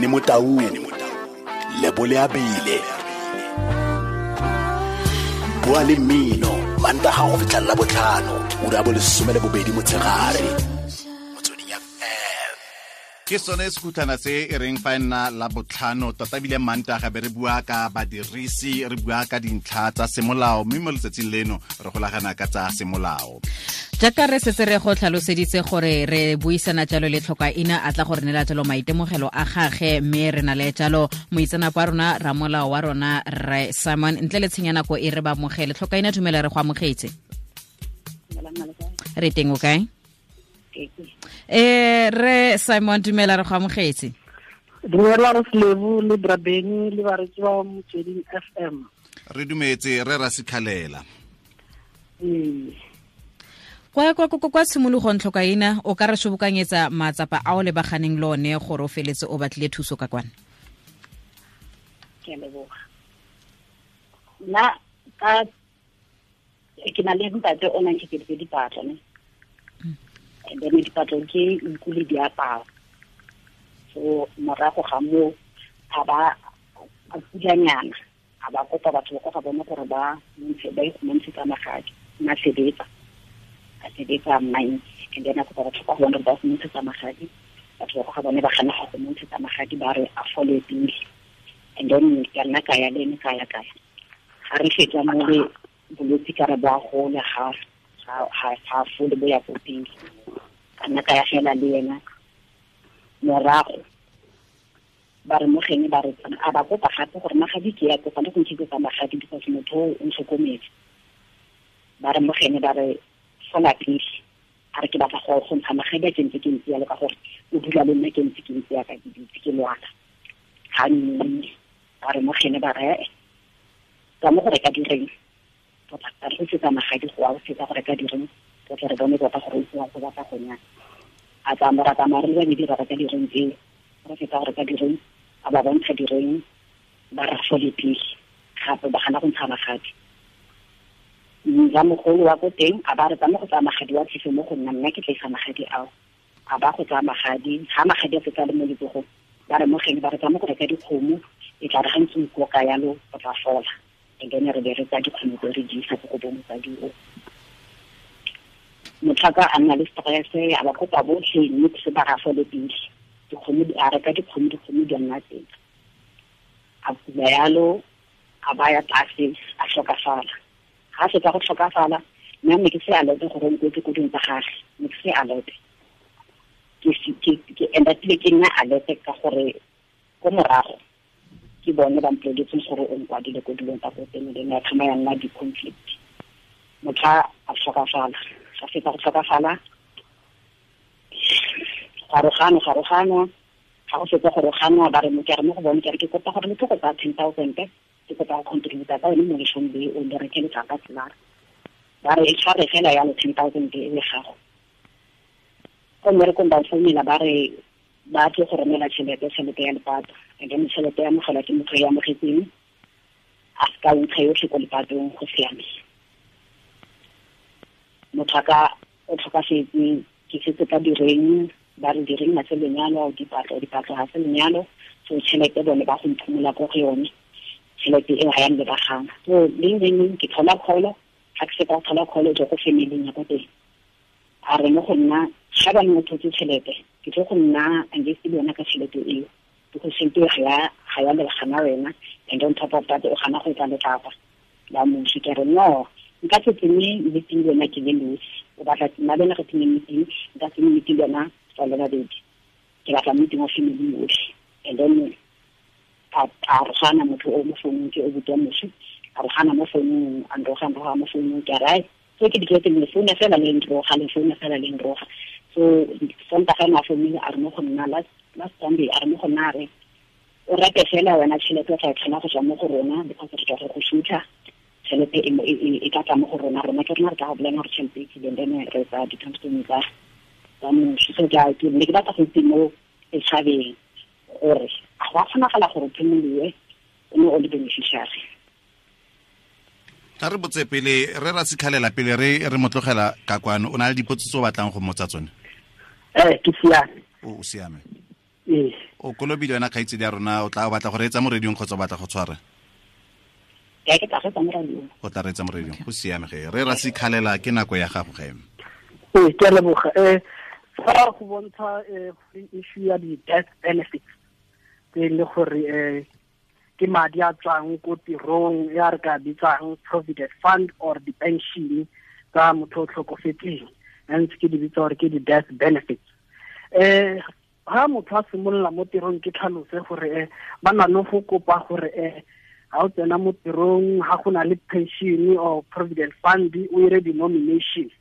Benny Motaung, Lebole Abile. Bua le mmino Mantaga go fitlha la botlhano, ura ya bo 12 motshegare. Motsweding FM. Ke sone sekhutlana se e reng fa e nna la botlhano tota ebile Mantaga be re bua ka badirisi, re bua ka dintlha tsa semolao, mme mo letsatsing leno re golagana ka tsa semolao. Jaaka re setse re go tlhaloseditse gore re buisana jalo le Tlhokaina a tla go re neela jalo maitemogelo a gage, mme re na le jalo moitseanape wa rona, ramolao wa rona, Rre Simon. Ntle le tshenya nako e re ba amogele. Tlhokaina, dumela, re go amogetse. Re teng, o kae? Re Simon, dumela, re go amogetse. Dumela re Slebu le Brabeni le baretsi ba Motsweding FM. Re dumetse re Rasikhalela. Kwa tshimologong, Tlhokaina, o ka re sobokanyetsa matsapa a o lebaganeng le one gore o feletse o batlile thuso ka kwana? Ke a leboga. Nna ka ke na le ntate o nang ke dipatlo ne. And then dipatlo ke nku le diaparo. So morago ga moo a ba a kulanyana, a ba kopa batho ba kwa ga bone gore ba ntshe, ba ikgomantshetsa magadi. Nna sebetsa, a sebetsa mine, and then a kopa batho kwa go bone gore ba go magadi. Batho ba kwa ga bone ba gana go mo ntshetsa magadi, ba re a fole pele. And then ka nna ka ya le ene, ka ya ka ya. Ga re fetsa mo le bolwetse ka re bo a gola, ga fole, bo ya ko pele. Ka nna ka ya fela le ena. Morago ba re mogene ba re a ba kopa gape gore magadi ke ya kopa le go ntshetsa magadi because motho o ntlhokometse. Ba re mogene ba re fola pele, a re ke batla go ntsha magadi a ke ntse ke ntse yalo ka gore o dula le nna ke ntse ke ntse yaka ke dutse ke lwala. Ga nne ba re mogene ba re ka mo go reka direng, tota re go setsa magadi go a o setsa go reka direng, tota re bone tota gore o tsewa go batla go nyana. A tsamaya ra tsamaya re le babedi ra reka direng tseo, re fetsa go reka direng, a ba bontsha direng, ba re fole pele gape ba gana go ntsha magadi. Ramogolo wa ko teng a ba re tsamaya go tsaya magadi wa tlise mo go nna, nna ke tla isa magadi ao. A ba go tsaya magadi, ga magadi a fetsa le mo letsogong, ba re mogeng ba re tsamaya go reka dikgomo, e tla re ga ntse o ikoka yalo o tla fola. And then re be re tsaya dikgomo tse re di isa ko go bo mosadi o. Motlhaka a nna le stress, a ba kopa botlhe, mme se ba ga fole pele. Dikgomo di a reka dikgomo, dikgomo di nna teng. A kula yalo, a baya tlase, a tlhokafala. Ga fetsa go tlhokafala, nna ne ke se alert gore o nkwetse ko ding tsa gagwe, ne ke se alert. Ke end-upile ke nna alert ka gore ko morago ke bone ba mpoleletseng gore o nkwadile ko dilong tsa ko teng, then ya thoma ya nna di-conflict. Motho a tlhokafala, ga fetsa go tlhokafala, garoganwa, ga go fetsa go roganwa, ba re mo ke re mo go bone, ke re ke kopa gore le tlo go tsaya 10,000, ke kopa go contributa ka yone mo leshong le o le reke letlapa tselara. Ba re e tshware fela yalo 10,000 e le gago. Ko mmerekong ba founela ba re ba tle go romela tšhelete, tšhelete ya lepato. And then tšhelete ya amogelwa ke motho yo amogetseng, a se ka ntsha yotlhe ko lepatong, go siame. Motho a ka o tlhokafetse, ke setse ka direng, ba re direng ga se lenyalo, dipatlo, dipatlo ga se lenyalo, so tšhelete bone ba go mphumola ko go yone, tšhelete eo ga ya nlebagana. So leng leng leng ke thola call, ga ke fetsa go thola call e tswa ko family-ing ya ko teng. A re mo go nna, ga ba ne thotse tšhelete, ke tlo go nna engaged le yona ka tšhelete eo, because tšhelete eo ga ya lebagana wena, and on top of that o gana go etsa letlapa la moswi. Ke re no, nka se tsenye meeting le wena ke le nosi, o batla nna le wena re tsenye meeting, nka tsenye meeting le wena re le babedi, ke batla meeting wa family yotlhe. And then a rogana motho o mo founung, ke o botwa moswi, a rogana mo founung, a nroga, nroga mo founung, ke a re, ai, so ke ditletse le founa fela le nroga, le founa fela le nroga. So Sontaga ene a founile, a re mo go nna last Sunday, a re mo go nna a re o reke fela wena tšhelete o tla e kgona go tswa mo go rona, because re tswa go go shutha, tšhelete e tla tla mo go rona, rona ke rona re tla go bolela gore tšhelete e tlileng, then re tsa di-tombstone tsa moswi. So ke ne ke batla go itse mo setšhabeng gore a go a kgonagala gore o phimoliwe o ne o le beneficiary. Tla re botse pele re Rasikhalela, pele re mo tlogela ka kwano, o na le dipotso tse o batlang go mmotsa tsone? Ke siame. O siame. Ee. O kolobile wena kgaitsedi ya rona, o tla batla go reetsa mo radiong kgotsa o batla go tshwara? Ke tla reetsa mo radiong. O tla reetsa mo radiong, go siame ge. Re Rasikhalela, ke nako ya gago ge. Ee, ke a leboga. Fa go bontsha issue ya di-death benefits tse e le gore ke madi a tswang ko tirong ya re ka bitsang provident fund or di-pension tsa motho o tlhokofetseng, ntse ke di bitsa gore ke di-death benefits. Ha motho a simolola mo tirong, ke tlhalose gore ba na le go kopa gore ha o tsena mo tirong, ha go na le pension or provident fund, o ire di-nomination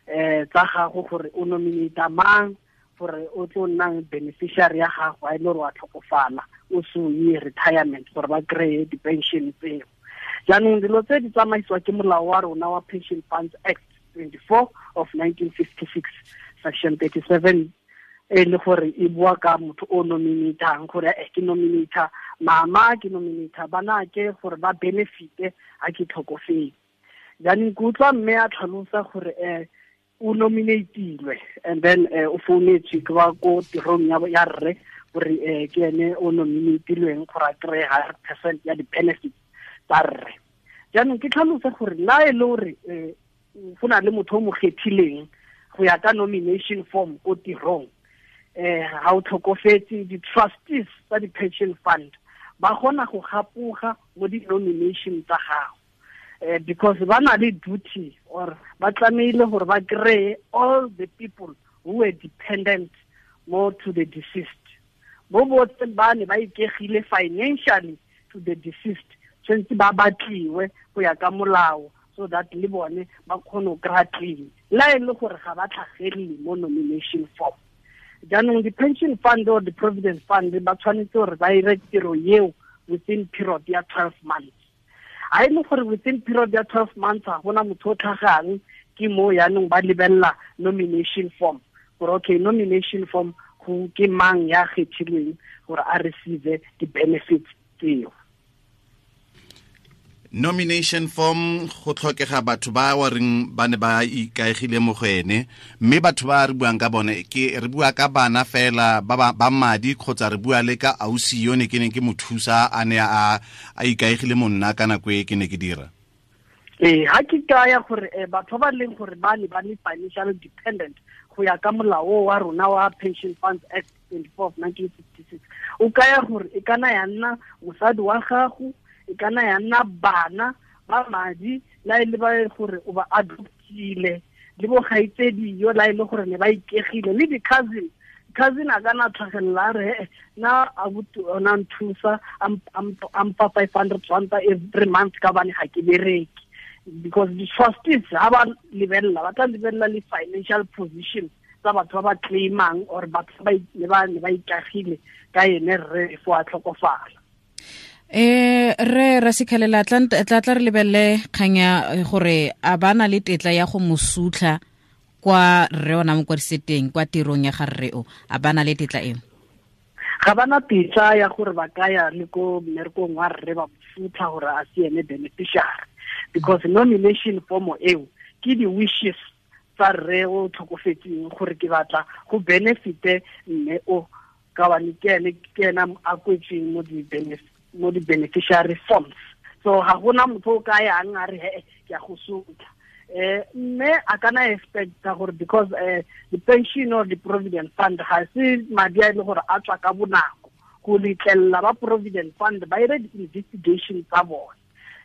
tsa gago gore o nominate mang gore o tlo nnang beneficiary ya gago a e le gore wa tlhokofala o se o ye retirement, gore ba kry-e di-pension tseo. Jaanong dilo tse di tsamaisiwa ke molao wa rona wa Pension Funds Act 24 of 1956, section 37, e le gore e bua ka motho o nominatang gore ke nominata mama, ke nominata banake gore ba benefite ha ke tlhokofetse. Jaanong ke utlwa mme a tlhalosa gore o nominatilwe and then o founetswe ke ba ko tirong ya rre gore ke ene o nominatilweng gore a kry-e 100% ya di-benefits tsa rre. Jaanong ke tlhalose gore la e le gore go na le motho o mo kgethileng go ya ka nomination form ko tirong, ha o tlhokofetse, di-trustees tsa di-pension fund ba kgona go gapoga mo di-nomination tsa gago, because ba na le duty or ba tlamehile gore ba kry-e all the people who were dependent more to the deceased. Bo botlhe ba ne ba ikegile financially to the deceased, tshwanetse ba batliwe go ya ka molao so that le bone ba kgone go kry-a claim la e le gore ga ba tlhagelele mo nomination form. Jaanong di-pension fund or the provident fund ba tshwanetse gore ba ire tiro eo within period ya 12 months. Ha e le gore within period ya 12 months ga gona motho o tlhagang, ke mo yaanong ba lebelela nomination form gore okay, nomination form go ke mang ya kgethilweng gore a receive di-benefits tseo. Nomination form go tlhokega batho ba wa reng ba ne ba ikaegile mo go ene, mme batho ba re buang ka bone ke re bua ka bana fela ba madi kgotsa re bua le ka ausi yo ne ke neng ke mo thusa a ne a ikaegile mo nna ka nako e ke ne ke dira? Ee, ha ke kaya gore batho ba leng gore ba ne ba le financial dependent go ya ka molao wa rona wa Pension Funds Act 24 of 1956, o kaya gore e kana ya nna mosadi wa gago, e kana ya nna bana ba madi la e le ba gore o ba adoptile, le bo kgaitsedi yo la e le gore ne ba ikegile, le di-cousin. Cousin a kana tlhagelela re na abuti ona nthusa a mpa 500 rand every month ka bane ga ke bereke, because the trustees ha ba lebelela, ba tla lebelela le financial position tsa batho ba ba claimang or batho ba ne ba ikagile ka ene rre fo a tlhokofala. Re Rasikhalela, tla re lebelele kgang ya gore a ba na le tetla ya go mo sutlha kwa rre ona mo kwadiseteng kwa tirong ya ga rre o, a ba na le tetla eo? Ga ba na tetla ya gore ba ka ya le ko mmerekong wa rre ba mo sutlha gore a se ene beneficiary, because nomination form eo ke di-wishes tsa rre o tlhokofetseng gore ke batla go benefite mme o ka bane ke ena a kwetsweng mo di-beneficiary forms. So ga gona motho o ka yang a re he ke a go sotla. Mme a kana expecta gore because the pension or the provident fund ga se madi a e le gore a tswa ka bonako, go letlelela ba provident fund ba ire di-investigation tsa bone.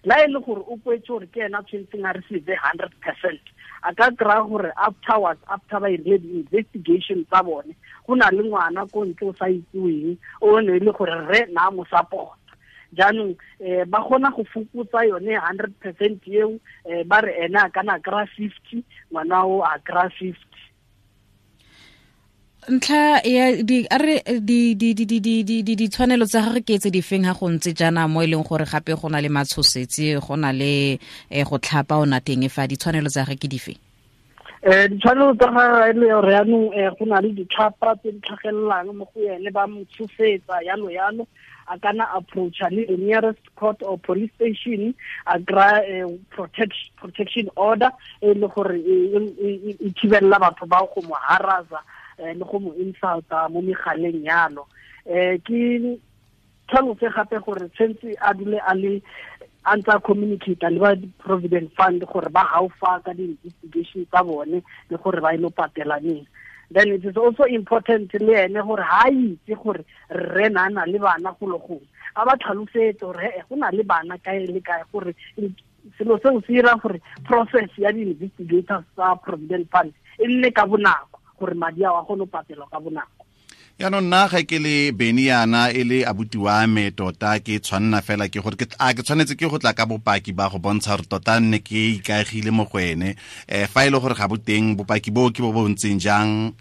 La e le gore o kwetse gore ke ena tshwanetseng a receive 100%, a ka kry-a gore afterwards, after ba irile di-investigation tsa bone, go na le ngwana ko ntle o sa itseweng o ne e le gore rre na mo support. Jaanong ba kgona go fokotsa yone 100% eo, ba re ene a kana kry-a 50, ngwana o a kry-a 50. Ntlha ya di a re di di di di di di di ditshwanelo tsa gagwe ke tse di feng ha go ntse jaana mo e leng gore gape go na le matshosetsi, go na le go tlhapa ona teng, fa ditshwanelo tsa gagwe ke dife? Ditshwanelo tsa gagwe e le gore yaanong go na le ditlhapa tse di tlhagelelang mo go ene, ba mo tshosetsa yalo yalo, a kana approacha le the nearest court or police station, a kry-a protection order e le gore e thibelela batho ba go mo harasa le go mo insulta mo megaleng yalo. Ke tlhalose gape gore tshwanetse a dule a le a ntse a communicate le ba Provident Fund gore ba gaufa ka di-investigation tsa bone le gore ba ile patela neng. Then it is also important le ene gore ha itse gore rre na na le bana go le gongwe, a ba tlhalosetse gore go na le bana kae le kae, gore selo seo se dira gore process ya di-investigators tsa Provident Fund e nne ka bonako, gore madi ao a kgone go patelwa ka bonako. Yaanong nna ga ke le Beny yana e le abuti wa me tota, ke tshwanna fela ke gore a ke tshwanetse ke go tla ka bopaki ba go bontsha gore tota nne ke ikaegile mo go ene. Fa e le gore ga bo teng bopaki bo ke bo bo ntseng jang?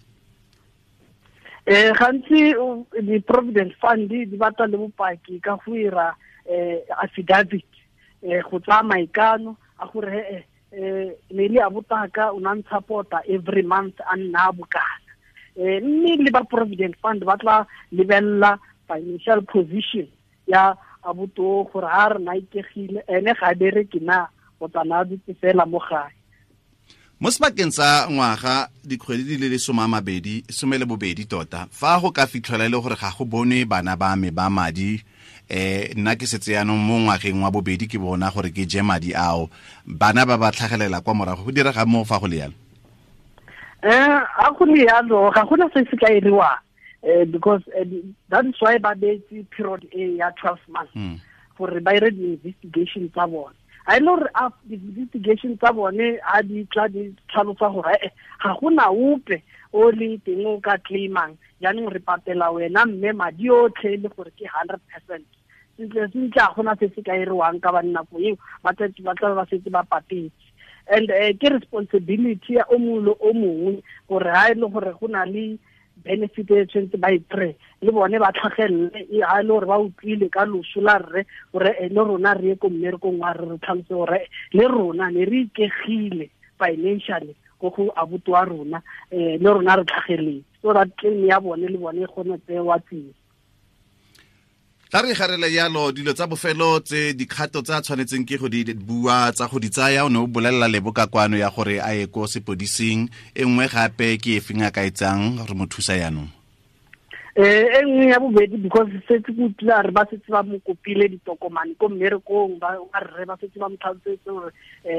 Gantsi di-Provident Fund di batla le bopaki ka go ira affidavit, go tsaya maikano a gore ne le abutaka o na ntshapota every month a nna bokana. Mme le ba Provident Fund ba tla lebella financial position ya abuto gore ha re na ikegile ene ga bereke na o tsana dutse fela mo gae. Mo sebakeng sa ngwaga dikgwedi di le 12 tota, fa go ka fitlhela e le gore ga go bone bana ba me ba madi, nna ke setse yaanong mo ngwageng wa bobedi ke bona gore ke je madi ao, bana ba ba tlhagelela kwa morago, go direga mo fa go le yalo? A go le yalo ga gona se se ka iriwang, because that is why ba beetse period e ya 12 months gore ba ire di-investigation tsa bone. A ile gore di-investigation tsa bone a di tla di tlhalosa gore ga gona ope o leng teng o ka claimang, jaanong re patela wena mme madi otlhe le gore ke 100%. Sentle sentle ga gona se se ka iriwang ka ba nako eo, ba tla ba setse ba patetse. And ke responsibility ya o mongwe le o mongwe gore ha e le gore go na le benefit e tshwanetse ba e kry-e, le bone ba tlhagelele, ha e le gore ba utlwile ka loso la rre gore le rona re ye ko mmerekong wa re re tlhalose gore le rona ne re ikegile financially ko go abuti wa rona, le rona re tlhageletse, so that claim ya bone le bone e kgone tsewa tsia. Tla re garela yalo dilo tsa bofelo tse dikgato tsa tshwanetseng ke go di bua tsa go di tsaya, o ne o bolelela Lebo ka kwano ya gore a ye ko sepodising, e nngwe gape ke e feng a ka etsang re mo thusa yaanong? E nngwe ya bobedi, because setse ke utlwile re ba setse ba mo kopile ditokomane ko mmerekong, ba rre ba setse ba mo tlhalosetse gore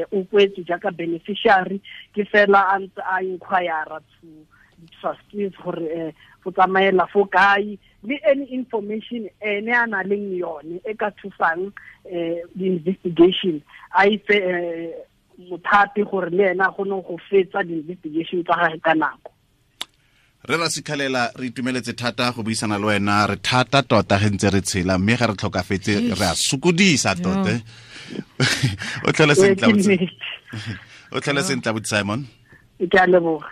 o kwetswe jaaka beneficiary, ke fela a ntse a inquire to trustees gore go tsamaela fo kae, le any information ene a na leng yone e ka thusang di-investigation, a ife mothapi gore le ena a kgone go fetsa di-investigation tsa gagwe ka nako. Re ra Sikhalela, re itumeletse thata go buisana le wena, re thata tota ge ntse re tshela, mme ga re tlhokafetse re a sokodisa tota. O tlhole sentle, o tlhole sentle, Simon. Ke a leboga.